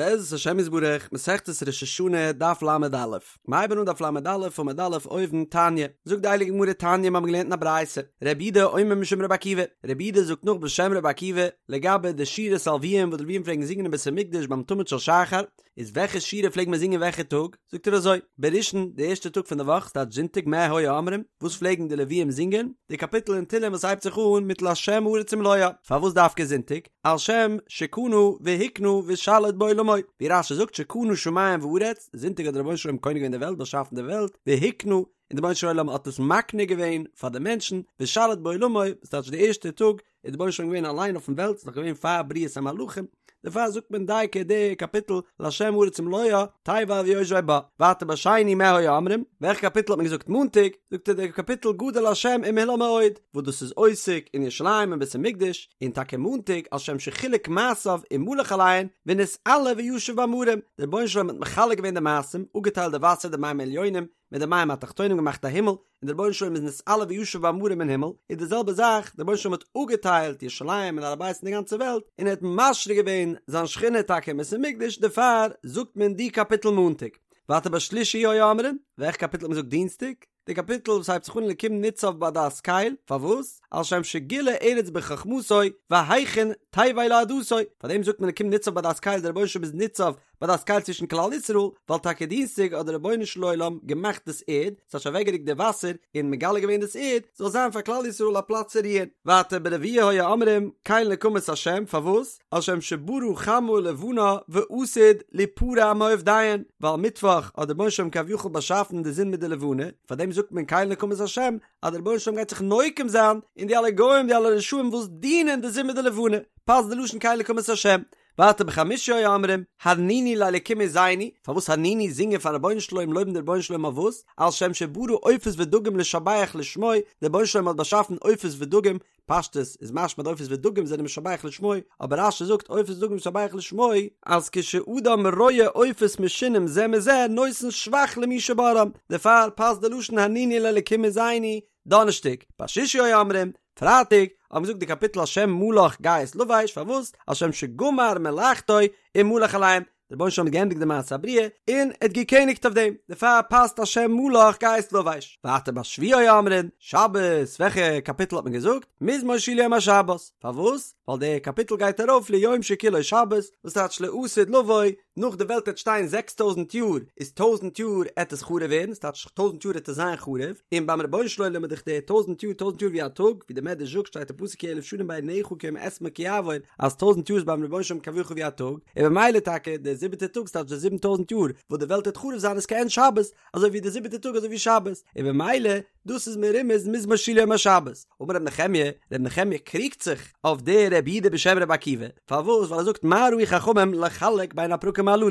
בעזרת השם יתברך, מסכת ראש השנה, דף ל"א. מ'הייבן אן דף ל"א עמוד א' אויבן, תניא. זאגט די הייליגע גמרא תניא מ'האבן געלערנט אין א ברייתא, רבי יהודה אומר משום רבי עקיבא, רבי יהודה זאגט נאך בשם רבי עקיבא, לגבי די שירת הלוויים וואס די לוויים פלעגן זינגען אין בית המקדש ביים תמיד של שחר, איז וועלכע שירה פלעגט מען זינגען וועלכע טאג? זאגט ער אזוי, בראשון, די ערשטע טאג פון די וואך, ס'טייטש זונטאג, מה היו אומרים, וואס פלעגן די לוויים זינגען? די קאפיטל אין תהלים וואס הייבט זיך אן מיט לה' הארץ ומלואה. פארוואס דווקא זונטאג? על שם שקנה והקנה ושליט בעולמו, ווי רש"י זאגט שקנה שמים וארץ, זונטאג האט דער רבונו של עולם קונה געווען די וועלט, באשאפן די וועלט, והקנה, און דער רבונו של עולם האט עס מקנה געווען פאר די מענטשן, ושליט בעולמו, וואס טייטש די ערשטע טאג איז דער רבונו של עולם געווען אליין אויפן וועלט, ס'איז נאך געווען פאר בריאת המלאכים, דערפאר זאגט מען דייקא די קאפיטל לה' הארץ ומלואה, תבל ויושבי בה. ווייטער בשני מה היו אומרים, וועלכע קאפיטל האט מען געזאגט מאנטאג, זאגט ער די קאפיטל גדול ה' ומהולל מאוד, וואס דאס איז עוסק אין ירושלים און בית המקדש, און טאקע מאנטאג על שם שחילק מעשיו ומלך עליהן, ונתעלה וישב במרום, דער רבונו של עולם האט מחלק געווען די מעשים, אפגעטיילט די וואסער די מים העליונים מיט די מים התחתונים געמאכט א הימל, און דער רבונו של עולם איז נתעלה וישב במרום אין הימל, איז די זעלבע זאך, דער רבונו של עולם האט אפגעטיילט ירושלים און הר הבית און די גאנצע וועלט, און ער האט משרה געווען זיין שכינה טאקע אין בית המקדש, דערפאר זאגט מען די קאפיטל מאנטאג. ווייטער בשלישי היו אומרים, וועלכע קאפיטל האט מען געזאגט דינסטאג? די קאפיטל וואס הייבט זיך אן אלקים ניצב בעדת קל, פארוואס? על שם שגילה ארץ בחכמתו והכין תבל לעדתו, פארדעם זאגט מען אלקים ניצב בעדת קל, דער רבונו של עולם איז ניצב בעדת קל צווישן כלל ישראל, ווייל טאקע דינסטאג האט דער רבונו של עולם געמאכט דאס ערד, ס'האט שוין אוועקגערוקט די וואסער און מגלה געווען דאס ערד, זאל זיין פאר כלל ישראל א פלאץ צו רוען. ווייטער ברביעי היו אומרים, קל נקמות השם, פארוואס? על שם שברא חמה ולבנה ועתיד ליפרע מעובדיהן, ווייל מיטוואך האט דער רבונו של עולם כביכול באשאפן די זון מיט די לבנה, פאר דעם זאגט מען קל נקמות השם, אז דער רבונו של עולם גייט זיך נוקם זיין אין די אלע גוים די אלע רשעים וואס דינען די זון מיט די לבנה, פאסט די לשון קל נקמות השם. ווייטער בחמישי היו אומרים, הרנינו לאלקים עוזנו, פארוואס הרנינו זינגען פארן רבונו של עולם לויבן די רבונו של עולם אויף וואס? על שם שברא עופות ודגים לשבח לשמו, דער רבונו של עולם האט באשאפן עופות ודגים, פשטות איז משמע די עופות ודגים זענען משבח לשמו, אבער רש"י זאגט עופות ודגים משבח לשמו, אז כשאדם רואה עופות משונים זה מזה נותן שבח למי שבראם, דערפאר פאסט די לשון הרנינו לאלקים עוזנו, דאנערשטאג, בשישי היו אומרים, פרייטאג, האט מען געזאגט די קאפיטל השם מלך גאות לבש, פארוואס? על שם שגמר מלאכתו ומלך עליהם, דער רבונו של עולם האט געענדיגט די מעשה הבריאה און ער האט געקעניגט אויף דעם, דערפאר פאסט השם מלך גאות לבש. ווייטער בשביעי היו אומרים, שבת, וועלכע קאפיטל האט מען געזאגט? מזמור שיר ליום השבת, פארוואס? ווייל דער קאפיטל גייט ארויף ליום שכולו שבת, וואס טייטש לעתיד לבוא, נאך די וועלט העט שטיין 6000 יאר, איז טויזנט יאר עט עס חרוב ווערן, ס'טייטש טויזנט יאר עט עס זיין חרוב, און ביים רבונו של עולם איז דאך די טויזנט יאר טויזנט יאר ווי א טאג, ווי דער מדרש זאגט שטייט אין פסוק כי אלף שנים בעיניך כיום אתמול כי יעבור, אז טויזנט יאר איז ביים רבונו של עולם כביכול ווי א טאג, און במילא טאקע דער זיבעטער טאג ס'טייטש די 7000 יאר וואס די וועלט העט חרוב זיין איז כעין שבת, אזוי ווי דער זיבעטער טאג אזוי ווי שבת, און במילא דאס איז מרומז מזמור שיר ליום השבת. אמר ר' נחמיה, ר' נחמיה קריגט זיך אויף דער רבי יהודה בשם רבי עקיבא, פארוואס? ווייל ער זאגט מה ראו חכמים לחלק בין הפרקים הללו,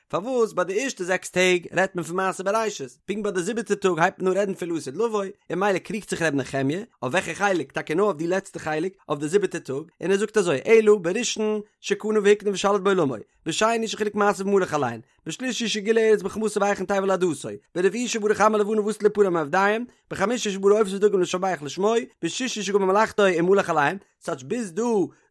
פארוואס ביי די ערשטע זעקס טעג רעדט מען פון מעשה בראשית, פונקט ביי די זיבעטע טאג הייבט מען אן רעדן פון לעתיד לבוא, און ממילא קריגט זיך ר' נחמיה, אויף וועלכע חלק, טאקע נאר אויף די לעצטע חלק, אויף די זיבעטע טאג, און ער זאגט אזוי, אלא בראשון שקנה והקנה ושליט בעולמו, בשני שחילק מעשיו ומלך עליהן, בשלישי שגילה ארץ בחכמתו והכין תבל לעדתו, ברביעי שברא חמה ולבנה ועתיד ליפרע מעובדיהם, בחמישי שברא עופות ודגים לשבח לשמו, בשישי שגמר מלאכתו ומלך עליהם, ס'טייטש ביז דא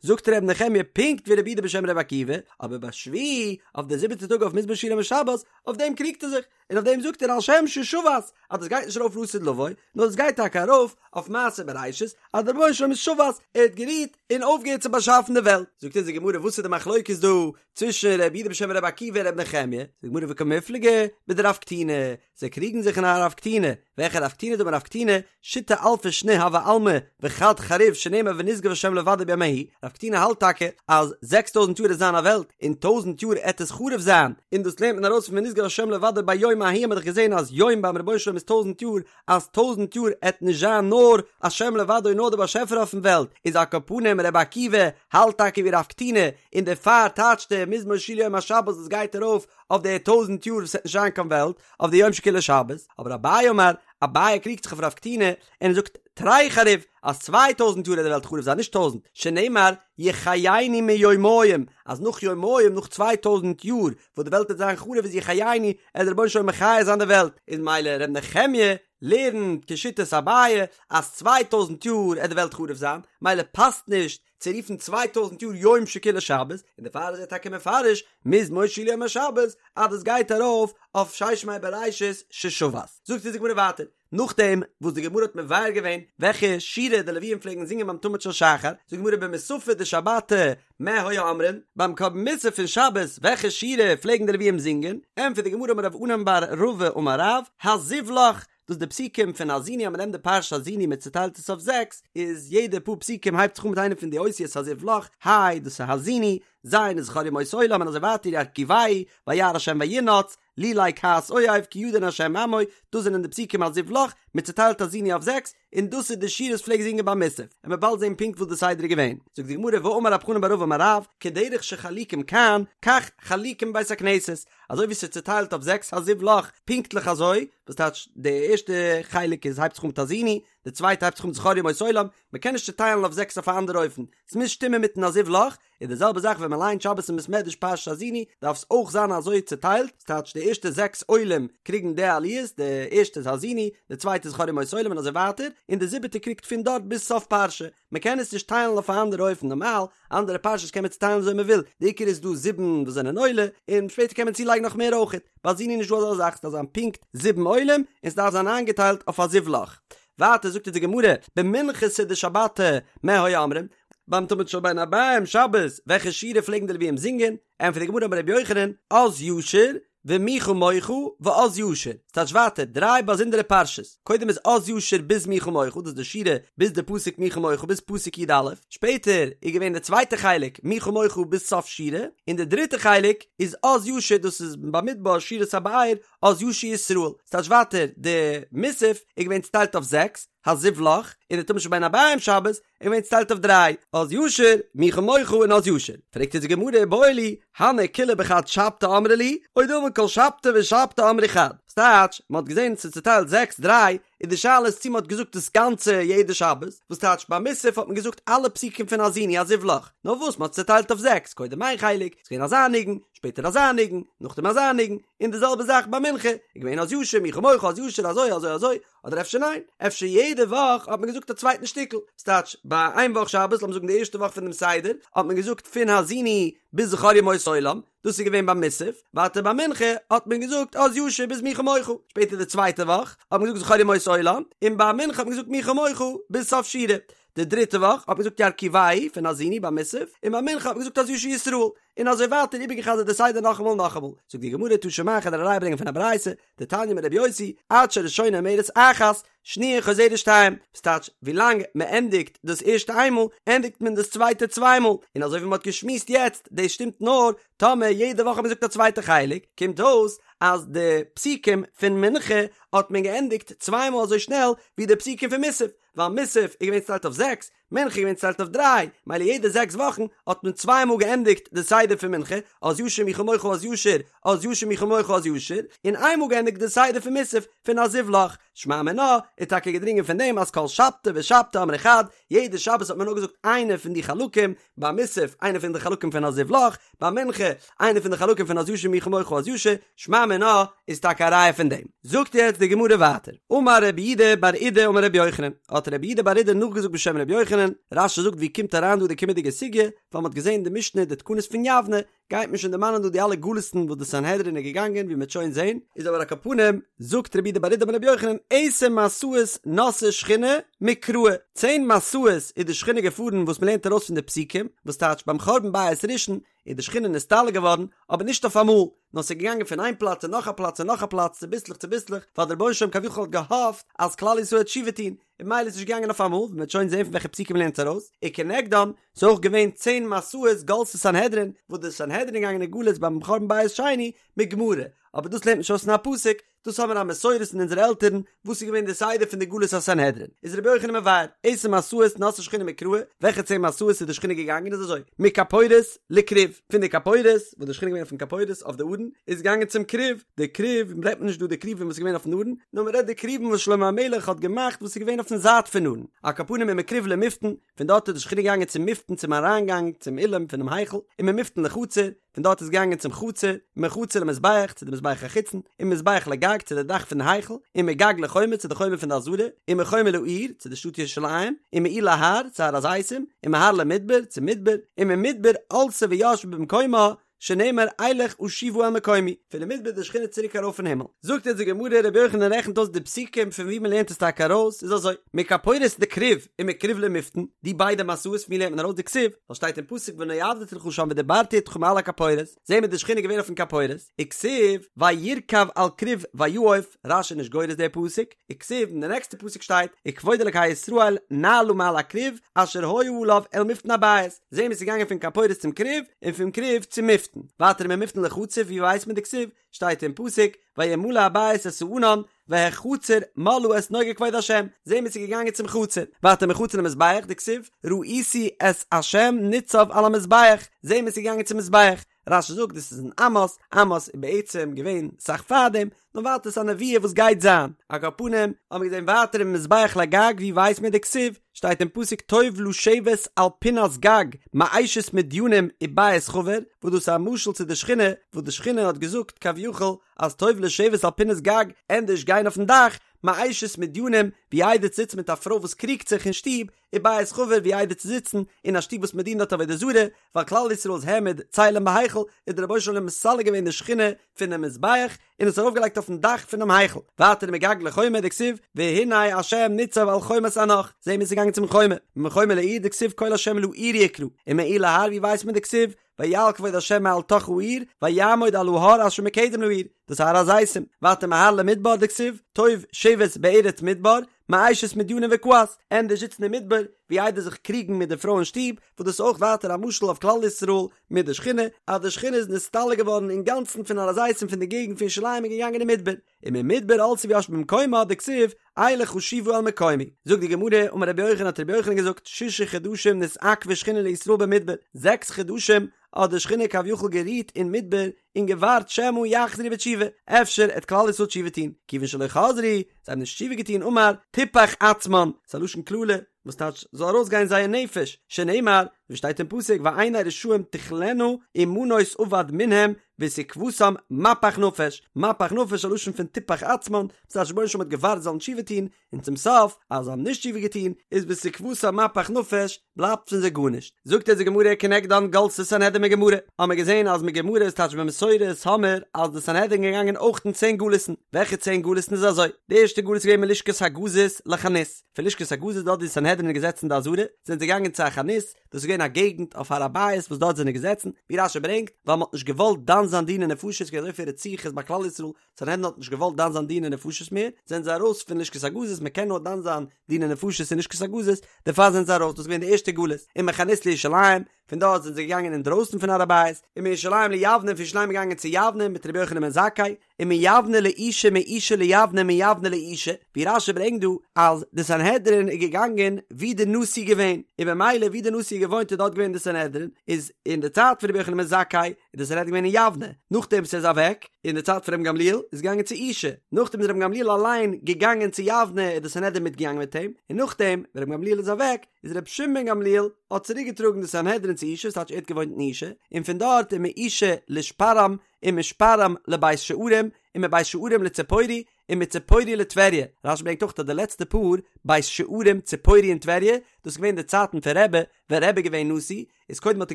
זאגט ר' נחמיה פונקט ווי רבי יהודה בשם רבי עקיבא, אבער בשביעי, אויף די זיבעטע טאג אויף מזמור שיר ליום השבת, אויף דעם קריגט ער זיך, און אויף דעם זאגט ער על שם ששבת, אז דאס גייט נישט ארויף לעתיד לבוא, נאר דאס גייט טאקע ארויף אויף מעשה בראשית, אז דער רבונו של עולם איז שבת, ער האט גערוהט און אויפגעהערט צו באשאפן די וועלט. זאגט אונז די גמרא וואס איז די מחלוקת דא צווישן רבי יהודה בשם רבי עקיבא און רבי נחמיה, זאגט די גמרא וקמיפלגי בדרב קטינא, זיי קריגן זיך אין א רב קטינא, וועלכע רב קטינא דאמר רב קטינא, שיתא אלפי שני הוי עלמא וחד חריב שנאמר ונשגב השם לבדו ביום ההוא, רב קטינא האלט טאקע אז זעקס טויזנט יאר עט זיין א וועלט און טויזנט יאר עט עס חרוב זיין, און דאס לערנט מען ארויס פון ונשגב השם לבדו ביום ההוא האט מען דאך געזען אז יום ביים רבונו של עולם איז טויזנט יאר, אז טויזנט יאר עט נישט זיין נאר השם לבדו נאר דער באשעפער אויפן וועלט, איז על כל פנים רבי עקיבא האלט טאקע ווי רב קטינא און דערפאר טייטשט ער מזמור שיר ליום השבת דאס גייט ארויף אויף די טויזנט יאר וואס עט נישט זיין קיין וועלט, אויף די יום שכולו שבת, אבער אביי אמר, אביי קריגט זיך אויף רב קטינא, און ער זאגט תרי חריב, אז 2000 יאר וועט די וועלט חרוב זיין נישט טויזנט, שנאמר יחייני מיומים, אז נאך יומיים נאך 2000 יאר וואס די וועלט וועט זיין חרוב איז יחייני, עט דער רבונו של עולם מחיה זיין די וועלט, איז ממילא ר' נחמיה לערנט כשיטת אביי אז 2000 יאר עט די וועלט חרוב זיין, ממילא פאסט נישט. צו רופן צוויי טויזנט יאר יום שכולו שבת, און דערפאר איז ער טאקע מפרש מזמור שיר ליום השבת אז דאס גייט ארויף אויף ששת ימי בראשית ששבת. זאגט אונז די גמרא ווייטער, נאכדעם וואס די גמרא האט מבאר געווען וועלכע שירה די לוויים פלעגן זינגען ביים תמיד של שחר, זאגט די גמרא במוספי דשבתא מה היו אומרים, ביים קרבן מוסף פון שבת וועלכע שירה פלעגן די לוויים זינגען, ענטפערט די גמרא אמר רב ענן בר רבא אמר רב, הזיו לך, דאס איז די פסוקים פון האזינו אז מען נעמט די פרשת האזינו מען צוטיילט עס אויף זעקס, איז יעדע פאר פסוקים הייבט זיך אן מיט איינע פון די אותיות הזיו לך, היי דאס איז האזינו, ז' איז זכור ימות עולם און אזוי ווייטער ירכיבהו, וירא השם וינאץ, לולי כעס אויב כי ידין השם עמו, דאס זענען די פסוקים הזיו לך, מען צוטיילט האזינו אויף זעקס, און דאס איז די שירה וואס פלעגט זינגען ביי מוסף, און מ'וועט באלד זען פונקט וואס די סדר איז געווען. זאגט די גמרא ואמר רב חנן בר רבא אמר רב, כדרך שחלוקים כאן, כך חלוקים בבית הכנסת, אזוי ווי ס'איז צוטיילט אויף זעקס הזיו לך, פונקטליך אזוי, וואס טייטש די ערשטע חלק איז הייבט זיך אן מיט האזינו, די צווייטע הייבט זיך אן מיט זכור ימות עולם, מ'קען נישט צוטיילן אויף זעקס אויף א אנדערע אופן, ס'מוז שטימען מיטן הזיו לך, און די זעלבע זאך ווען מען ליינט שבת אין בית מדרש פרשת האזינו דארף עס אויך זיין אזוי צוטיילט, ס'טייטש די ערשטע זעקס עולים קריגן די עליות, די ערשטע איז האזינו, די צווייטע איז זכור ימות עולם און אזוי ווייטער, און די זיבעטע קריגט פון דארט ביז סוף פרשה, מען קען עס נישט טיילן אויף א אנדערע אופן, נארמאל אנדערע פרשות קען מען צוטיילן וויאזוי מען וויל, די עיקר איז דא זיבן וואס זענען עולה, און שפעטער קען מען צולייגן נאך מער אויכעט, ביי האזינו איז נישט דא אזא זאך, ס'דארף זיין פונקט זיבן עולים, און ס'דארף זיין איינגעטיילט אויף הזיו לך. ווייטער זאגט אונז די גמרא, במנחתא דשבתא מה היו אומרים, ביים תמיד של בין הערביים שבת, וועלכע שירה פלעגן די לוויים זינגען? ענטפערט די גמרא אמר רבי יוחנן, אז ישיר, ומי כמוך, ואז ישיר. ס'טייטש ווייטער, דריי באזונדערע פרשות. קודם איז אז ישיר ביז מי כמוך, דאס איז די שירה ביז די פסוק מי כמוך ביז פסוק י א. שפעטער איז געווען די צווייטע חלק מי כמוך ביז סוף שירה, און די דריטע חלק איז אז ישיר דאס איז במדבר שירת הבאר, אז ישיר ישראל. ס'טייטש ווייטער, די מוסף איז געווען צוטיילט אויף זעקס, הזיו לך, און די תמיד של בין הערביים שבת, איז געווען צוטיילט אויף דריי, אז ישיר, מי כמוך און אז ישיר. פרעגט אונז די גמרא איבעיא להו, הני כולהו בחד שבתא אמרי להו, או דלמא כל שבתא ושבתא אמרי חד. ס'טייטש, מ'האט געזען ס'איז צוטיילט זעקס דריי, און די שאלה איז צו מ'האט געזאגט דאס גאנצע יעדע שבת, וואס טייטש ביי מוסף האט מען געזאגט אלע פסוקים פון האזינו הזיו לך, נאר וואס מ'האט צוטיילט אויף זעקס, קודם איין חלק, ס'איז געווען אזא ניגון, שפעטער אזא ניגון, נאכדעם אזא ניגון, און די זעלבע זאך ביי מנחה, איז געווען אז ישיר, מי כמוך, אז ישיר, אזוי אזוי אזוי, אדער אפשר ניין, אפשר יעדע וואך האט מען געזאגט א צווייטן שטיקל, ס'טייטש, ביי איין וואך שבת, לאמיר זאגן די ערשטע וואך פון דעם סדר, האט מען געזאגט פון האזינו ביז זכור ימות עולם, דאס איז געווען ביי מוסף, ווייטער ביי מנחה האט מען געזאגט אז ישיר ביז מי כמוך, שפעטער די צווייטע וואך האט מען געזאגט זכור ימות עולם, און ביי מנחה האט מען געזאגט מי כמוך ביז סוף שירה, די דריטע וואך האט מען געזאגט ירכיבהו פון האזינו ביי מוסף, און ביי מנחה האט מען געזאגט אז ישיר ישראל, און אזוי ווייטער איבערגעחזרט די סדר נאכאמאל און נאכאמאל, זאגט די גמרא תא שמע כ'וועל דיר א ראיה ברענגען פון א ברייתא, דתניא אמר רבי יוסי, עד שהראשונה אומרת אחת, שניה חוזרת שתיים, ס'טייטש, ווילאנג מ'ענדיגט דאס ערשטע איינמאל, ענדיגט מען דאס צווייטע צוויי מאל, און אזוי ווי מ'האט געשמועסט יעצט, דאס שטימט נאר טאמער יעדע וואך האט מען געזאגט א צווייטע חלק, קומט אויס אז די פסוקים פון מנחה האט מען געענדיגט צוויי מאל אזוי שנעל ווי די פסוקים פון מוסף, ווייל מוסף איז געווען צוטיילט אויף זעקס, מנחה איז געווען צוטיילט אויף דריי, מילא יעדע זעקס וואכן האט מען צוויי מאל געענדיגט די סדר פון מנחה, אז ישיר מי כמוך אז ישיר, אז ישיר מי כמוך אז ישיר, און איין מאל געענדיגט די סדר פון מוסף פון הזיו לך. שמע מינה איז טאקע געדרינגען פון דעם אז כל שבתא ושבתא אמרי חד, יעדע שבת האט מען נאר געזאגט איינע פון די חלקים, ביי מוסף איינע פון די חלקים פון הזיו לך, ביי מנחה איינע פון די חלקים פון אז ישיר מי כמוך אז ישיר, שמע מינה איז טאקע א ראיה פון דעם. זאגט יעצט די גמרא ווייטער, אמר רב יהודה בר אידי אמר רבי יוחנן, האט רב יהודה בר אידי נאכגעזאגט בשם רבי יוחנן, רש"י זאגט ווי קומט אריין דא די קומענדיגע סוגיא, ווייל מ'האט געזען די משנה די תקנות פון יבנה, גייט מען שוין דערמאנען דא די אלע גלות'ן וואס די סנהדרין איז געגאנגען ווי מ'וועט שוין זען, איז אבער על כל פנים, זאגט רב יהודה בר אידי אמר רבי יוחנן, עשר מסעות נסעה שכינה מקראי, צען מסעות איז די שכינה געפארן וואס מ'לערנט ארויס פון די פסוקים, וואס טייטש ביים חורבן בית ראשון איז די שכינה נסתלק געווארן, אבער נישט אויף אמאל, נאר ס'איז געגאנגען פון איין פלאץ צו נאך א פלאץ און נאך א פלאץ צוביסלעך צוביסלעך, ווייל דער רבונו של עולם כביכול האט געהאפט אז כלל ישראל וועט תשובה טון, און ממילא איז נישט געגאנגען אויף אמאל, ווי מ'וועט שוין זען פון וועלכע פסוקים מ'לערנט עס ארויס, וכנגדם, ס'איז אויך געווען צען מסעות גלתה סנהדרין, וואס די סנהדרין איז געגאנגען אין גלות ביים חורבן בית שני, מגמרא, אבער דאס לערנט מען נישט אויס פון א פסוק, דאס האבן מיר א מסורת פון אונזערע עלטערן, וואס איז געווען די סדר פון די גלות הסנהדרין, איז רבי יוחנן מבאר, עשר מסעות נסעה שכינה מקראי, וועלכע צען מסעות איז די שכינה געגאנגען איז אזוי, מכפורת לכרוב, פון די כפורת, וואס די שכינה איז געווען אויפן כפורת אויף די ארון, איז געגאנגען צום כרוב, די כרוב, רעדט מען נישט דא די כרובים וואס איז געווען אויפן ארון, נאר מען רעדט די כרובים וואס שלמה המלך האט געמאכט וואס איז געווען אויף. אויפן זייט פון ארון, על כל פנים ומכרוב למפתן, פון דארט איז די שכינה געגאנגען צום מפתן צום אריינגאנג צום אולם פונעם היכל, וממפתן לחצר, פון דארט איז געגאנגען צום חצר, ומחצר למזבח, צו די מזבח החיצון, וממזבח לגג, צו די דאך פון די היכל, ומגג לחומה, צו די חומה פון די עזרה, ומחומה לעיר, צו די שטאט ירושלים, ומעיר להר, צו הר הזיתים, ומהר למדבר, צום מדבר, וממדבר עלתה וישבה במקומה, שנאמר אלך אשובה אל מקומי, פון די מדבר איז די שכינה צוריק ארויף אין הימל. זאגט אונז די גמרא, רבי יוחנן רעכנט אויס די פסוקים פון וואו מען לערנט עס טאקע ארויס, איז אזוי, מכפורת לכרוב ומכרוב למפתן, די ביידע מסעות פון וואו לערנט מען ארויס דכתיב, ווייל שטייט אין פסוק ונועדתי לך שם ודברתי אתך מעל הכפורת, זעהן מיר די שכינה געווען אויפן כפורת, וכתיב וירכב על כרוב ויעף, רש"י איז נישט גורס די פסוק, וכתיב אין די נעקסטע פסוק שטייט וכבוד אלקי ישראל נעלה מעל הכרוב אשר היה עליו אל מפתן הבית, זעהן מיר ס'איז געגאנגען פון כפורת צום כרוב און פון כרוב צום מפתן, ווייטער וממפתן לחצר ווי ווייסט מען דכתיב שטייט אין פסוק וימלא הבית את הענן והחצר מלאה את נוגה כבוד השם, זעהן מיר ס'איז געגאנגען צום חצר, ווייטער מחצר למזבח דכתיב ראיתי את השם ניצב על המזבח, זעהן מיר ס'איז געגאנגען צום מזבח, רש"י זאגט דאס איז אין עמוס, עמוס איז בעצם געווען אסאך פארדעם, נאר ווייטער ס'איז א נבואה וואס גייט זיין, על כל פנים האבן מיר געזען ווייטער וממזבח לגג ווי ווייסט מען דכתיב, שטייט אין פסוק טוב לשבת על פינת גג מאשת מדינים ובית חבר, וואס דאס איז א משל צו די שכינה, וואס די שכינה האט געזאגט כביכול אז טוב לשבת על פינת גג, ענדערש גיין אויפן דאך, מאשת מדינים, ווי איידער צו זיצן מיט א פרוי וואס קריגט זיך אין שטוב, ובית חבר ווי איידער צו זיצן אין א שטוב וואס מען דינט דארט עבודה זרה, ווייל כלל ישראל איז העמיד צלם בהיכל, איז דער רבונו של עולם מסלק געווען די שכינה פונעם מזבח און עס ארויפגעלייגט אויפן דאך פונעם היכל, ווייטער ומגג לחומה דכתיב והנה ה' ניצב על חומת אנך, זעהן מיר ס'איז געגאנגען צום חומה, ומחומה לעיר דכתיב קול ה' לעיר יקרא, ומעיר להר ווי ווייסט מען דכתיב ויעל כבוד ה' מעל תוך העיר ויעמוד על ההר אשר מקדם לעיר, דאס איז הר הזיתים, ווייטער מהר למדבר דכתיב טוב שבת בארץ מדבר, מאשת מדינים וכעס, ענדערש זיצן אין מדבר ווי איידער זיך קריגן מיט די פרוי אין שטוב, וואס דאס איז אויך ווייטער א משל אויף כלל ישראל מיט די שכינה, אז די שכינה איז נסתלק געווארן אינגאנצן פון הר הזיתים פון די געגנט פון ירושלים און געגאנגען אין מדבר, וממדבר עלתה וישבה במקומה דכתיב אלך אשובה אל מקומי. זאגט די גמרא, אמר רבי יוחנן האט רבי יוחנן געזאגט, שישה חדשים נתעכבה שכינה לישראל במדבר, זעקס חדשים האט די שכינה כביכול גערוהט אין מדבר און געווארט שמא יחזרו בתשובה, אפשר עט כלל ישראל תשובה טוהן, כיוון שלא חזרו, זיי האבן נישט תשובה געטוהן אמר, תפח עצמן, ס'איז א לשון קללה, וואס טייטש זאל ארויסגיין זייער נפש, שנאמר, ווי שטייט אין פסוק ועיני רשעים תכלינה ומנוס אבד מנהם ותקותם מפח נפש, מפח נפש א לשון פון תפח עצמן, וואס טייטש רבונו של עולם האט געווארט זיי זאלן תשובה טון, און צום סוף אז זיי האבן נישט תשובה געטון, איז ותקותם מפח נפש, בלייבט פון זיי גארנישט. זאגט אונז די גמרא כנגדן גלתה סנהדרין מגמרא, האמער געזען אז מגמרא איז טייטש במסורת האמער אז די סנהדרין געגאנגען אויך אין צען גלות'ן, וועלכע צען גלות'ן איז אזוי, די ערשטע גלות איז געווען מלשכת הגזית לחנות, פון לשכת הגזית דארט ווי די סנהדרין איז געזעצן אין די עזרה, זענען זיי געגאנגען צו א חנות, דאס איז געווען א געגנט אויף הר הבית וואס דארט זענען געזעצן, ווי רש"י ברענגט, ווייל מען האט נישט געוואלט דן זיין דיני נפשות, ס'געווען אזויפיל רציחות ביי כלל ישראל, סנהדרין האט נישט געוואלט דן זיין דיני נפשות מער, זענען זיי ארויס פון לשכת הגזית, מען קען נאר דן זיין דיני נפשות אין לשכת הגזית, דערפאר זענען זיי ארויס, דאס איז געווען די ערשטע גלות, ומחנות לירושלים, פון דארט זענען זיי געגאנגען אינדרויסן פון הר הבית, ומירושלים ליבנה, פון ירושלים געגאנגען צו יבנה מיט רבי יוחנן בן זכאי, ומיבנה לאושא מאושא ליבנה מיבנה לאושא, ווי רש"י ברענגט דא אז די סנהדרין איז געגאנגען ווי די נשיא איז געווען, און במילא ווי די נשיא איז געוואוינט איז דארט געווען די סנהדרין, איז אין די צייט פון רבי יוחנן בן זכאי איז די סנהדרין געווען אין יבנה, נאכדעם וואס ער איז אוועק, אין די צייט פון רבן גמליאל איז געגאנגען צו אושא, נאכדעם איז רבן גמליאל אליין געגאנגען צו יבנה איז די סנהדרין מיטגעגאנגען מיט אים, און נאכדעם ווען רבן גמליאל איז אוועק איז רבי שמעון בן גמליאל האט צוריק געטראגן די סנהדרין צו אושא, ס'טייטש ער האט געוואוינט אין אושא, און פון דארט ומאושא לשפרעם ומשפרעם לבית שערים, ומבית שערים לציפורי, ומציפורי לטבריה. רש"י ברענגט אויך אז די לעצטע פאר, בית שערים, ציפורי און טבריה, דאס איז געווען די צייטן פון רבי, ווען רבי איז געווען נשיא, איז קודם האט ער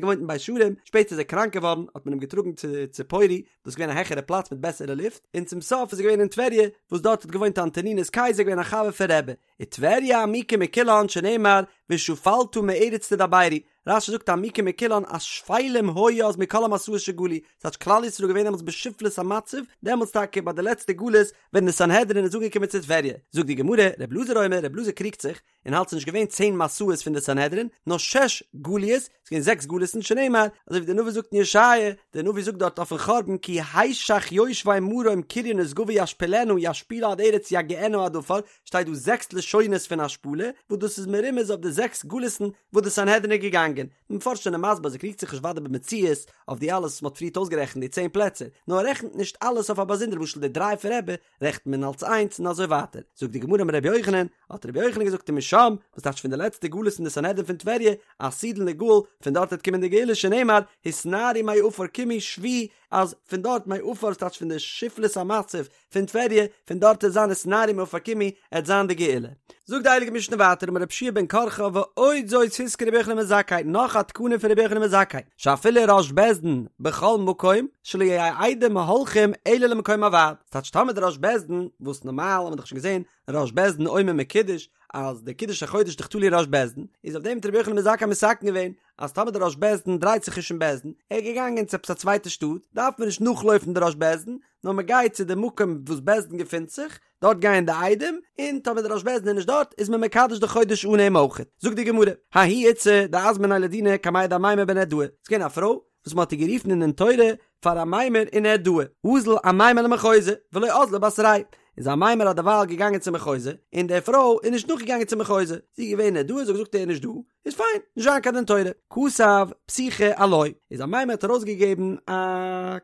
געוואוינט אין בית שערים, שפעטער איז ער קראנק געווארן, האט מען אים געטראגן צו ציפורי, דאס איז געווען א העכערע פלאץ מיט בעסערע לופט, און צום סוף איז ער געווען אין טבריה, וואס דארט האט געוואוינט אנטונינוס קיסר געווען א חבר פון רבי. וטבריה עמוקה מכולן שנאמר ושפלת מארץ תדברי, רש"י זאגט עמוקה מכולן אז שפלים היו אז מכל המסעות שגלו, ס'טייטש כלל ישראל איז געווען דעמאלטס בשפלות המצב, דעמאלטס טאקע ביי די לעצטע גלות ווען די סנהדרין איז אנגעקומען צו טבריה, זאגט די גמרא, ר' אלעזר אומר, ר' אלעזר קריגט זיך, און האלט ס'איז נישט געווען צען מסעות פון די סנהדרין, נאר שש גליות, ס'איז געווען אין זעקס גלות'ן שנאמר, אזוי ווי דער נביא זאגט אין ישעיה, דער נביא זאגט דארט אויפן חורבן כי השך יושבי מרום קריה נשגבה ישפילנה ישפילה עד ארץ יגיענה עד עפר, שטייט דא זעקס לשונות פון השפלה, וואס דאס איז מרומז אויף די זעקס גלות'ן וואס די סנהדרין איז געגאנגען. די מפרשים זענען מסביר אז ער קריגט זיך נישט ודאי במציאות אויף די אלעס וואס מ'האט פריערט אויסגערעכנט די צען פלעצער, נאר ער רעכנט נישט אלעס אויף א באזונדער למשל די דריי פון רבי רעכנט מען אלס איינס און אזוי ווייטער. זאגט די גמרא אמר רבי יוחנן, האט רבי יוחנן געזאגט ומשם, וואס טייטש פון די לעצטע גלות אין די סנהדרין פון טבריה, עתידין ליגאל, פון דארט וועט קומען די גאולה שנאמר, התנערי מעפר קומי שובי, אז פון דארט מעפר ס'טייטש פון די שפלות המצב פון טבריה, פון דארט עט זיין התנערי מעפר קומי, עט זיין די גאולה. זאגט די הייליגע משנה ווייטער אמר רבי יהושע בן קרחה ועוד זאת התקין רבי יוחנן בן זכאי נאך א תקנה פון רבי יוחנן בן זכאי שאפילו ראש בית דין בכל מקום שלא יהו עדים הולכים אלא למקום הוועד ס'טייטש טאמער די ראש בית דין וואס נארמאל האט מען דאך שוין געזען ראש בית דין אומר מקודש אז די קידוש החודש איז דאך תלוי ראש בית דין איז אויף דעם האט רבי יוחנן בן זכאי מתקן געווען אז טאמער די ראש בית דין דרייט זיך נישט אין בית דין ער איז געגאנגען צו עפעס א צווייטע שטאט דארף מען נישט נאכלויפן די ראש בית דין נאר מען גייט צו די מקום וואס בית דין געפינט זיך, דארט גייען די עדים, און טאמער די ראש בית דין איז נישט דארט, איז מען מקדש די חודש אן אים אויכעט. זאגט די גמרא, ההיא איתתא דאזמניה לדינא קמיה דאמימר בנהרדעא, ס'איז געווען א פרוי וואס מען האט איר גערופן אין דין תורה פאר אמימר אין נהרדעא, אזל אמימר למחוזא, ולא אזלה בתריה, איז אמימר האט דערווייל געגאנגען צום מחוזא, און די פרוי איז נישט נאכגעגאנגען צום מחוזא, זי איז געווען אין נהרדעא, זי האט געזאגט ער איז נישט דא, איז פיין, נישט זיין קיין דין תורה. כתב פתיחא עילויה, איז אמימר האט ארויסגעגעבן א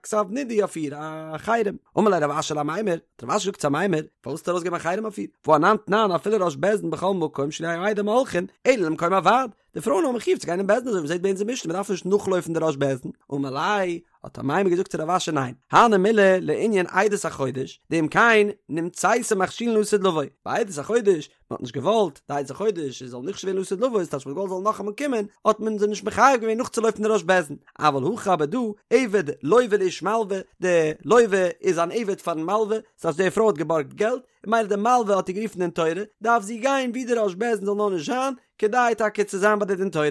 כתב נידוי אויף איר, א חרם. אמר ליה רב אשי לאמימר, האט רב אשי געזאגט צו אמימר, פארוואס האסטו ארויסגעגעבן א חרם אויף איר? והא אנן תנן אפילו ראש בית דין בכל מקום שלא יהו עדים הולכין, אלא למקום הוועד. די פרויען האבן חיוב צו גיין אין בית דין אזוי ווי מ'זעט ביי אונז אין משנה, מ'דארף נישט נאכלויפן די ראש בית דין. אמר ליה, האט אמימר געזאגט צו רב אשי ניין, הני מילי לענין עדות החודש, דאם כן נמצאת מכשילן לעתיד לבוא, ביי עדות החודש, מען האט נישט געוואלט די עדות החודש זאל נכשל ווערן לעתיד לבוא, ס'טייטש מען האט געוואלט זאל נאכאמאל קומען, האט מען זיי נישט מחייב געווען נאכצולויפן די ראש בית דין, אבל הכא אבער דא, עבד לוה לאיש מלוה, די לוה איז אן עבד פארן מלוה, ס'טייטש די פרוי האט געבארגט געלט, און ממילא די מלוה האט איר גערופן דין תורה, דארף זי גיין ווי די ראש בית דין זאל נאר נישט זיין, כדי טאקע צו זיין ביי די דין תורה.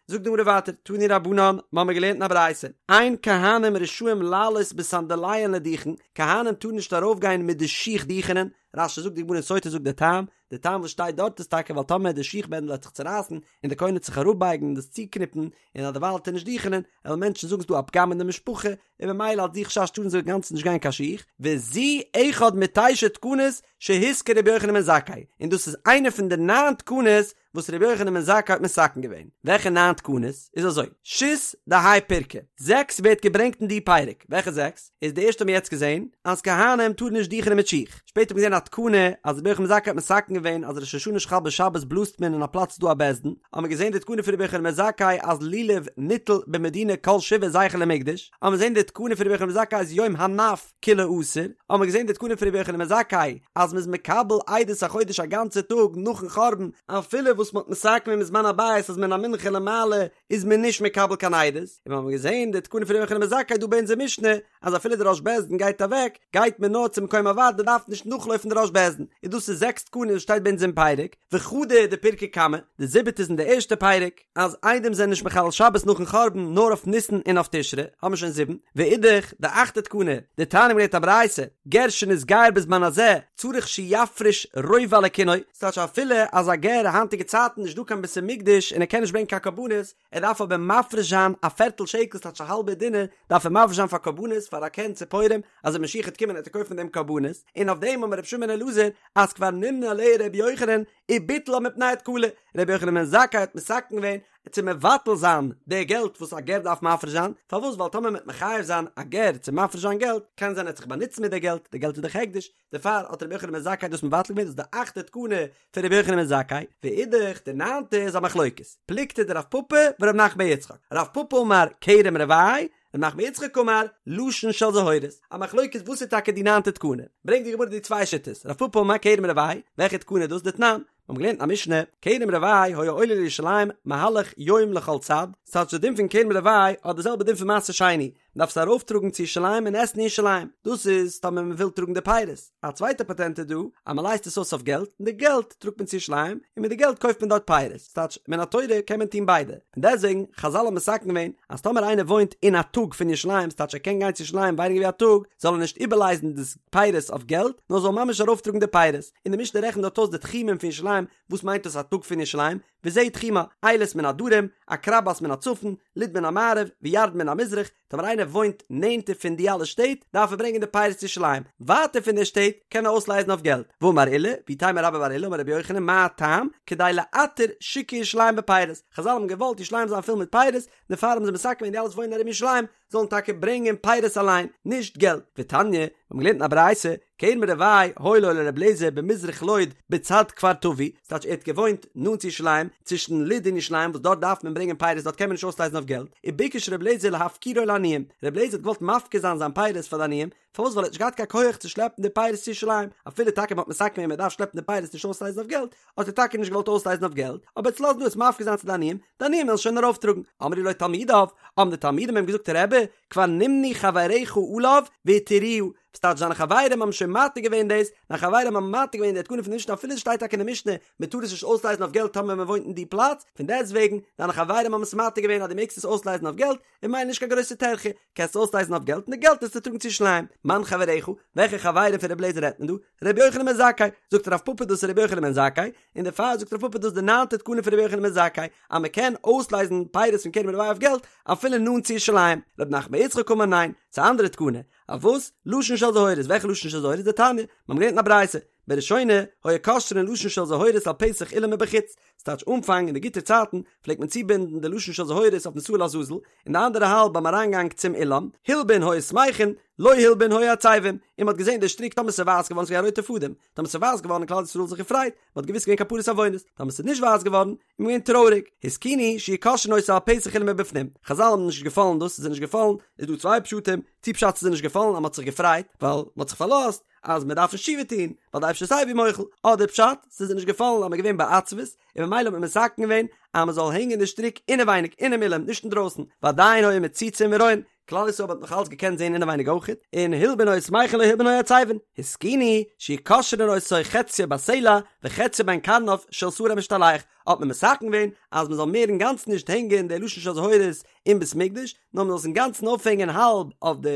זאגט די גמרא ווייטער, תנו רבנן, מ'האמיר געלערנט אין א ברייתא, אין כהנים רשאים לעלות בסנדליהן לדוכן, כהנים טארן נישט ארויפגיין מיט די שיך דוכענען, רש"י זאגט די גמרא אין סוטה זאגט די טעם, די טעם וואס שטייט דארט איז טאקע ווייל טאמער די שיך בענדל וועט זיך צורייסן און די כהן וועט זיך אראפבייגן און דאס צוקניפן און אז דערווייל וועט ער נישט דוכענען, וועלן מענטשן זאגן ס'דא א פגם אין די משפחה, און ממילא אלס די חשש טארן זיי אינגאנצן נישט גיין קיין שיך, וזו אחד מתשע תקנות שהתקין רבי יוחנן בן זכאי, און דאס איז איינע פון די ניין תקנות וואס רבי יוחנן בן זכאי האט מתקן געווען. וועלכע ניין תקנות? איז אזוי, שית דהאי פירקא, זעקס ווערט געברענגט אין די פרק, וועלכע זעקס? איז די ערשטע האבן מיר יעצט געזען, אז כהנים טארן נישט דוכענען מיט שיך, שפעטער האט מען געזען א תקנה אז רבי יוחנן בן זכאי האט מתקן געווען אז ראש השנה שחל בשבת בלאזט מען אין א פלאץ דא א בית דין, האבן מיר געזען די תקנה פון רבי יוחנן בן זכאי אז לולב ניטל במדינה כל שבעה זכר למקדש, האבן מיר געזען די תקנה פון רבי יוחנן בן זכאי אז יום הנף כולו אסור, האבן מיר געזען די תקנה פון רבי יוחנן בן זכאי אז מ'איז מקבל עדות החודש א גאנצע טאג נאכן חורבן, אפילו וואס מ'האט מתקן געווען בזמן הבית אז מן המנחה ולמעלה איז מען נישט מקבל קיין עדות, און מיר האבן געזען די תקנה פון רבי יוחנן בן זכאי דא ביי אונזער משנה אז אפילו די ראש בית דין גייט אוועק גייט מען נאר צום מקום הוועד מען דארף נישט נאכלויפן די ראש בית דין, און דאס איז זעקס תקנות וואס שטייט ביי אונז אין פרק, וחדא דפירקא קמא, די זיבעטע איז אין די ערשטע פרק. אז עדים זענען נישט מחלל שבת נאכן חורבן נאר אויף ניסן און אויף תשרי, האבן מיר שוין זיבן, ואידך, די אכטע תקנה, דתניא מ'האט געלערנט א ברייתא, גר שנתגייר בזמן הזה, צריך שיפריש רובע לקינו, ס'טייטש אפילו אז א גר היינטיגע צייטן נישט דא קיין בית המקדש און ער קען נישט ברענגען קיין קרבנות, ער דארף אבער מפריש זיין א פערטל שקל ס'טייטש א האלבע דינר, דארף ער מפריש זיין פאר קרבנות פאר א קן ציפורים, אז ווען משיח וועט קומען וועט ער קויפן דעם קרבנות, און אויף דעם אמר רבי שמעון בן אלעזר אז כבר נמנה עליה רבי יוחנן, וביטלה מפני התקלה, רבי יוחנן בן זכאי האט מתקן געווען צו מבטל זיין די געלט וואס א גר דארף מפריש זיין, פארוואס ווייל טאמער מ'וועט מחייב זיין א גר צו מפריש זיין געלט, קען זיין ער וועט זיך באנוצן מיט די געלט, די געלט איז דאך הקדש, דערפאר האט רבי יוחנן בן זכאי דאס מבטל געווען, דאס איז די אכטע תקנה פון רבי יוחנן בן זכאי, ואידך די ניינטע איז א מחלוקת, פלוגתא דרב פפא ורב נחמן בר יצחק, רב פפא אמר כרם רבעי, רב נחמן בר יצחק אמר, לשון של זהורית, א מחלוקת וואס איז טאקע די ניינטע תקנה, ברענגט די גמרא די צוויי שיטות, רב פפא אמר כרם רבעי, וועלכע תקנה איז דאס דתנן? מיר האבן געלערנט אין א משנה, כרם רבעי היה עולה לירושלים מהלך יום לכל צד, ס'טייטש די דין פון כרם רבעי האט די זעלבע דין פון מעשר שני, מ'דארף עס ארויפטראגן צו ירושלים און עסן אין ירושלים, דאס איז טאמער מ'וויל טראגן די פירות, א צווייטע פאטענט איז דא, אז מ'לייזט עס אויס אויף געלט, און די געלט טראגט מען צו ירושלים, און מיט די געלט קויפט מען דארט פירות, ס'טייטש מן התורה קען מען טון ביידע, פון דעסטוועגן, חזל האבן מתקן געווען, אז טאמער איינער וואוינט אין א טאג פון ירושלים, ס'טייטש ער קען גיין צו ירושלים ווייניגער ווי א טאג, זאל ער נישט איבערלייזן די פירות אויף געלט, נאר זאל ממש ארויפטראגן די פירות, און די משנה רעכנט דארט אויס די תחומים פון ירושלים, וואס מיינט דאס א טאג פון ירושלים? וזהו תחומה, אילת מן הדרום, עקרבת מן הצפון, לוד מן המערב, וירדן מן המזרח, טאמער איינער וואוינט נענטער פון די אלע שטעט, דארף ער ברענגען די פירות צו ירושלים, ווייטער פון די שטעט, קען ער אויסלייזן אויף געלט. ואמר עולא, ואיתימא רבה בר עולא, אמר רבי יוחנן, מה הטעם? כדי לעטר שוקי ירושלים בפירות. חזל האבן געוואלט ירושלים זיין פול מיט פירות, דערפאר האבן זיי מתקן געווען די אלע וואס וואוינען ארום ירושלים, זאלן טאקע ברענגען פירות אליין, נישט געלט. ותניא, מיר האבן געלערנט אין א ברייתא, כרם רבעי היה לו לר' אליעזר במזרח לוד בצד כפר טבי, ס'טייטש ער האט געוואוינט נאנט צו ירושלים, צווישן לוד און ירושלים וואס דארט דארף מען ברענגען פירות דארט קען מען נישט אויסלייזן אויף געלט, וביקש ר' אליעזר להפקירו לעניים, ר' אליעזר האט געוואלט מפקיר זיין זיין פירות פאר די עניים, פארוואס ווייל ער האט נישט געהאט קיין כח צו שלעפן די פירות צו ירושלים, אפילו טאקע מען האט מתקן געווען מען דארף שלעפן די פירות נישט אויסלייזן אויף געלט, האט ער טאקע נישט געוואלט אויסלייזן אויף געלט, אבער ער וועט עס לאזן דא עס מפקיר זיין צו די עניים, די עניים וועלן שוין ארויפטראגן. אמרו לו תלמידיו, האבן די תלמידים אים געזאגט רבי, כבר נמנו חבריך עליו והתירוה, וואס טייטש זיינע חברים האבן שוין מתיר געווען דאס, זיינע חברים האבן מתיר געווען די תקנה פון די משנה אפילו עס שטייט טאקע אין די משנה מען טאר עס נישט אויסלייזן אויף געלט טאמער מען וואוינט אין די פלאץ, פון דעסטוועגן, דיינע חברים האבן עס מתיר געווען אז דו מעגסט עס אויסלייזן אויף געלט, און ממילא נישט קיין גרויסע טרחה, קענסט אויסלייזן אויף געלט און די געלט וועסטו טראגן צו ירושלים. מאן חבריך, וועלכע חברים פון רבי אליעזר רעדט מען דא? רבי יוחנן בן זכאי, זאגט רב פפא דאס איז רבי יוחנן בן זכאי, און דערפאר זאגט רב פפא דאס איז די ניינטע תקנה פון רבי יוחנן בן זכאי, אז מען קען אויסלייזן פירות פון כרם רבעי אויף געלט אפילו נאנט צו ירושלים. רב נחמן בר יצחק אמר ניין, ס'איז א אנדערע תקנה. אויף וואס? לשון של זהורית, וועלכע לשון של זהורית? דתניא, מיר האבן געלערנט אין א ברייתא, בראשונה היו קושרין לשון של זהורית על פתח אולם מבחוץ, ס'טייטש אנפאנג אין די גוטע צייטן פלעגט מען צובינדן די לשון של זהורית אויפן שעיר לעזאזל, און די אנדערע האלב ביים אריינגאנג צום אולם, הלבין היו שמחין, לא הלבין היו עצבין, און מ'האט געזען די שטריק טאמער ס'איז ווייס געווארן ס'איז געווען א רויטע פאדעם, טאמער ס'איז ווייס געווארן האט כלל ישראל זיך געפרייט, מ'האט געוואוסט ס'געווען כפרת עוונות, טאמער ס'איז נישט ווייס געווארן, איז מען געווען טרויעריג, התקינו שיהו קושרין אותו על פתח אולם מבפנים, חזל האבן נישט געפאלן דאס, ס'איז זיי נישט געפאלן, איז דא צוויי פשטים, צו פשט ס'איז זיי נישט געפאלן אז מ'האט זיך געפרייט, ווייל מ'האט זיך פארלאזט אז מ'דארף נישט תשובה טון, ווייל די אייבערשטער איז סייווי מוחל, אדער פשט, ס'איז זיי נישט געפאלן אז מ'איז געווען בעצבות, און ממילא האט מען מתקן געווען אז מ'זאל הענגען די שטריק אינעווייניג אינעם אולם, נישט אינדרויסן, ועדיין היו מציצין ורואין, כלל ישראל האט נאך אלץ געקענט זען אינעווייניג אויכעט, און הלבין היו שמחין לא הלבין היו עצבין, התקינו שיהו קושרין אותו חציו בסלע וחציו בין קרניו של שעיר המשתלח, האט מען מתקן געווען אז מען זאל מער אינגאנצן נישט הענגען די לשון של זהורית אין בית מקדש, נאר מען זאל עס אינגאנצן אויפהענגען האלב אויף די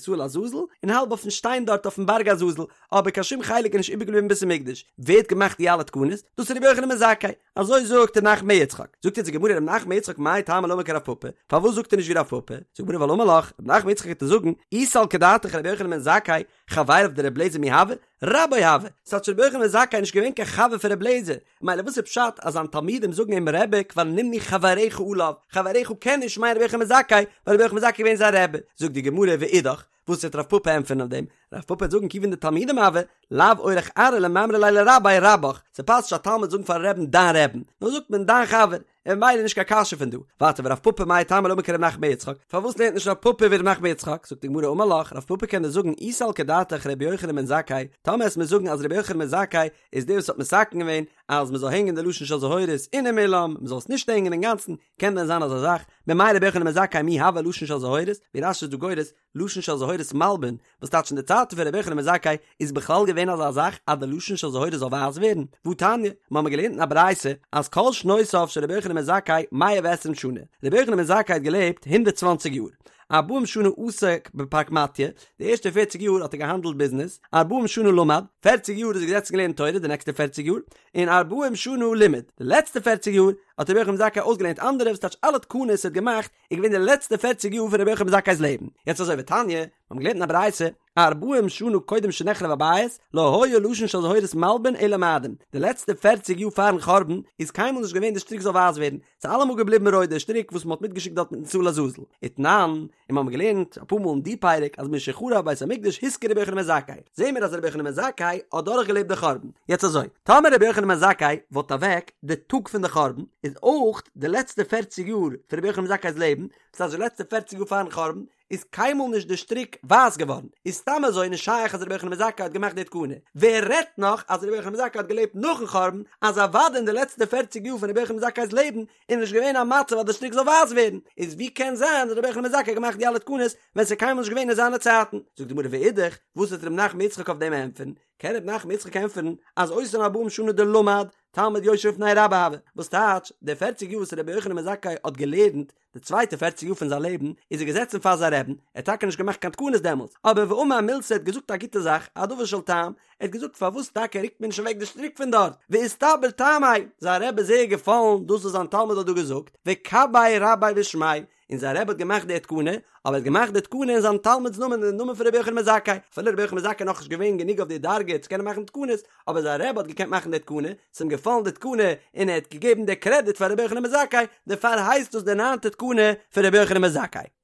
שעיר לעזאזל און האלב אויפן שטיין דארט אויפן בארג עזאזל, אבער קיין שום חלק איז נישט איבערגעבליבן אין בית המקדש. ווער האט געמאכט די אלע תקנות? דאס איז רבי יוחנן בן זכאי. אזוי זאגט ר' נחמן בר יצחק. זאגט יעצט די גמרא ר' נחמן בר יצחק מאי טעמא לא אמר כרב פפא, פארוואס זאגט ער נישט ווי רב פפא? זאגט די גמרא ווייל אמר לך, ר' נחמן בר יצחק וועט דיר זאגן, אי סלקא דעתך רבי יוחנן בן זכאי, חבריו דרבי אליעזר מי הוו? רבו הוה! ס'טייטש רבי יוחנן בן זכאי איז נישט געווען קיין חבר פון רבי אליעזר, מילא וואס איז פשט אז זיין תלמידים זאגן אים רבי כבר נמנו חבריך עליו, חבריך קען נישט מיינען רבי יוחנן בן זכאי, ווייל רבי יוחנן בן זכאי איז געווען זיין רבי, זאגט די גמרא ואידך, וואס וועט רב פפא ענטפערן אויף דעם? רב פפא וועט זאגן כיוון דתלמידים הוו, לאו אורח ארעא למימרא ליה לרביה רבך, ס'פאסט נישט א תלמיד זאגן פארן רעבן דיין רעבן, נאר זאגט מען דיין חבר, און ממילא נישט קיין קשיא פון דא. ווייטער ורב פפא מאי טעמא לא אמר כרב נחמן בר יצחק, פארוואס לערנט נישט רב פפא ווי רב נחמן בר יצחק? זאגט די גמרא אמר לך, רב פפא קען דיר זאגן אי סלקא דעתך רבי יוחנן בן זכאי, טאמער וועסט מיר זאגן אז רבי יוחנן בן זכאי איז דער וואס האט מתקן געווען אז מ'זאל הענגען די לשון של זהורית אינעם אולם, מ'זאל עס נישט הענגען אינגאנצן, קען דען זיין אזא זאך? ממאי רבי יוחנן בן זכאי מי הוה לשון של זהורית, ווי רש"י איז דא גורס, לשון של זהורית מלבין, וואס טייטש אין די צייטן פון רבי יוחנן בן זכאי איז בכלל געווען אזא זאך אז די לשון של זהורית זאל ווייס ווערן? והתניא, מיר האבן געלערנט אין א ברייתא אז כל שנותיו של רבי יוחנן בן זכאי מאה ועשרים שנה, רבי יוחנן בן זכאי האט געלעבט הונדערט צוואנציג יאר, ארבעים שנה עסק בפרקמטיא, די ערשטע פערציג יאר האט ער געהאנדלט ביזנעס, ארבעים שנה למד, פערציג יאר איז ער געזעצן געלערנט תורה די נעקסטע פערציג יאר, און ארבעים שנה לימד, די לעצטע פערציג יאר האט רבי יוחנן בן זכאי אויסגעלערנט אנדערע, וואס טייטש אלע תקנות ער האט געמאכט איז געווען די לעצטע פערציג יאר פון רבי יוחנן בן זכאי'ס לעבן. יעצט אזוי ותניא, מיר האבן געלערנט אין א ברייתא, ארבעים שנה קודם שנחרב הבית, לא היה לשון של זהורית מלבין אלא מאדים, די לעצטע פערציג יאר פארן חורבן איז קיינמאל נישט געווען די שטריק זאל ווייס ווערן, ס'איז אלעמאל געבליבן רויט די שטריק וואס מ'האט מיטגעשיקט דארט מיטן שעיר לעזאזל. ותנן, און מיר האבן געלערנט אפאר מאל אין די פרק אז משחרב בית המקדש התקין רבי יוחנן בן זכאי, זעהן מיר אז רבי יוחנן בן זכאי האט דורכגעלעבט די חורבן. יעצט אזוי, טאמער רבי יוחנן בן זכאי וואלט אוועק די טאג פון די חורבן, איז אויך די לעצטע פערציג יאר פון רבי יוחנן בן זכאי'ס לעבן, דאס הייסט די לעצטע פערציג יאר פארן חורבן, איז קיינמאל נישט די שטריק ווייס געווארן, איז סתם אזוי נישט שייך אז רבי יוחנן בן זכאי האט געמאכט די תקנה, ווער רעדט נאך אז רבי יוחנן בן זכאי האט געלעבט נאכן חורבן, אז אוודאי אין די לעצטע פערציג יאר פון רבי יוחנן בן זכאי'ס לעבן איז נישט געווען א מצב אז די שטריק זאל ווייס ווערן, איז ווי קען זיין אז רבי יוחנן בן זכאי האט געמאכט די אלע תקנות ווען ס'איז קיינמאל נישט געווען אין זיינע צייטן? זאגט די גמרא ואידך, וואס וועט ר' נחמן יצחק אויף דעם ענטפערן? קען ר' נחמן בר יצחק ענטפערן אז אותן ארבעים שנה דלמד תלמיד יושב לפני רבו הוה, וואס טייטש, די פערציג יאר וואס רבי יוחנן בן זכאי האט געלערנט, די צווייטע פערציג יאר פון זיין לעבן, איז ער געזעצן פאר זיין רעבן, ער האט טאקע נישט געמאכט קיין תקנות דעמאלטס, אבער ואמר מילתא ער האט געזאגט א גוטע זאך, א דבר של טעם, ער האט געזאגט פארוואס טאקע רוקט מען נישט אוועק די שטריק פון דארט, ואיסתבר טעמיה, זיין רבי איז זייער געפאלן דאס וואס זיין תלמיד האט דא געזאגט, וקבעיה רביה בשמיה, און זיין רבי האט געמאכט די תקנה, אבער ער האט געמאכט די תקנה אין זיין תלמיד'ס נאמען אין די נאמען פון רבי יוחנן בן זכאי, אפילו רבי יוחנן בן זכאי איז נאכנישט געווען גענוג אויף די דרגה צו קענען מאכן תקנות, אבער זיין רבי האט געקענט מאכן די תקנה, ס'איז אים געפאלן די תקנה און ער האט געגעבן די קרעדיט פאר רבי יוחנן בן זכאי, דערפאר הייסט דאס די ניינטע תקנה פון רבי יוחנן בן זכאי.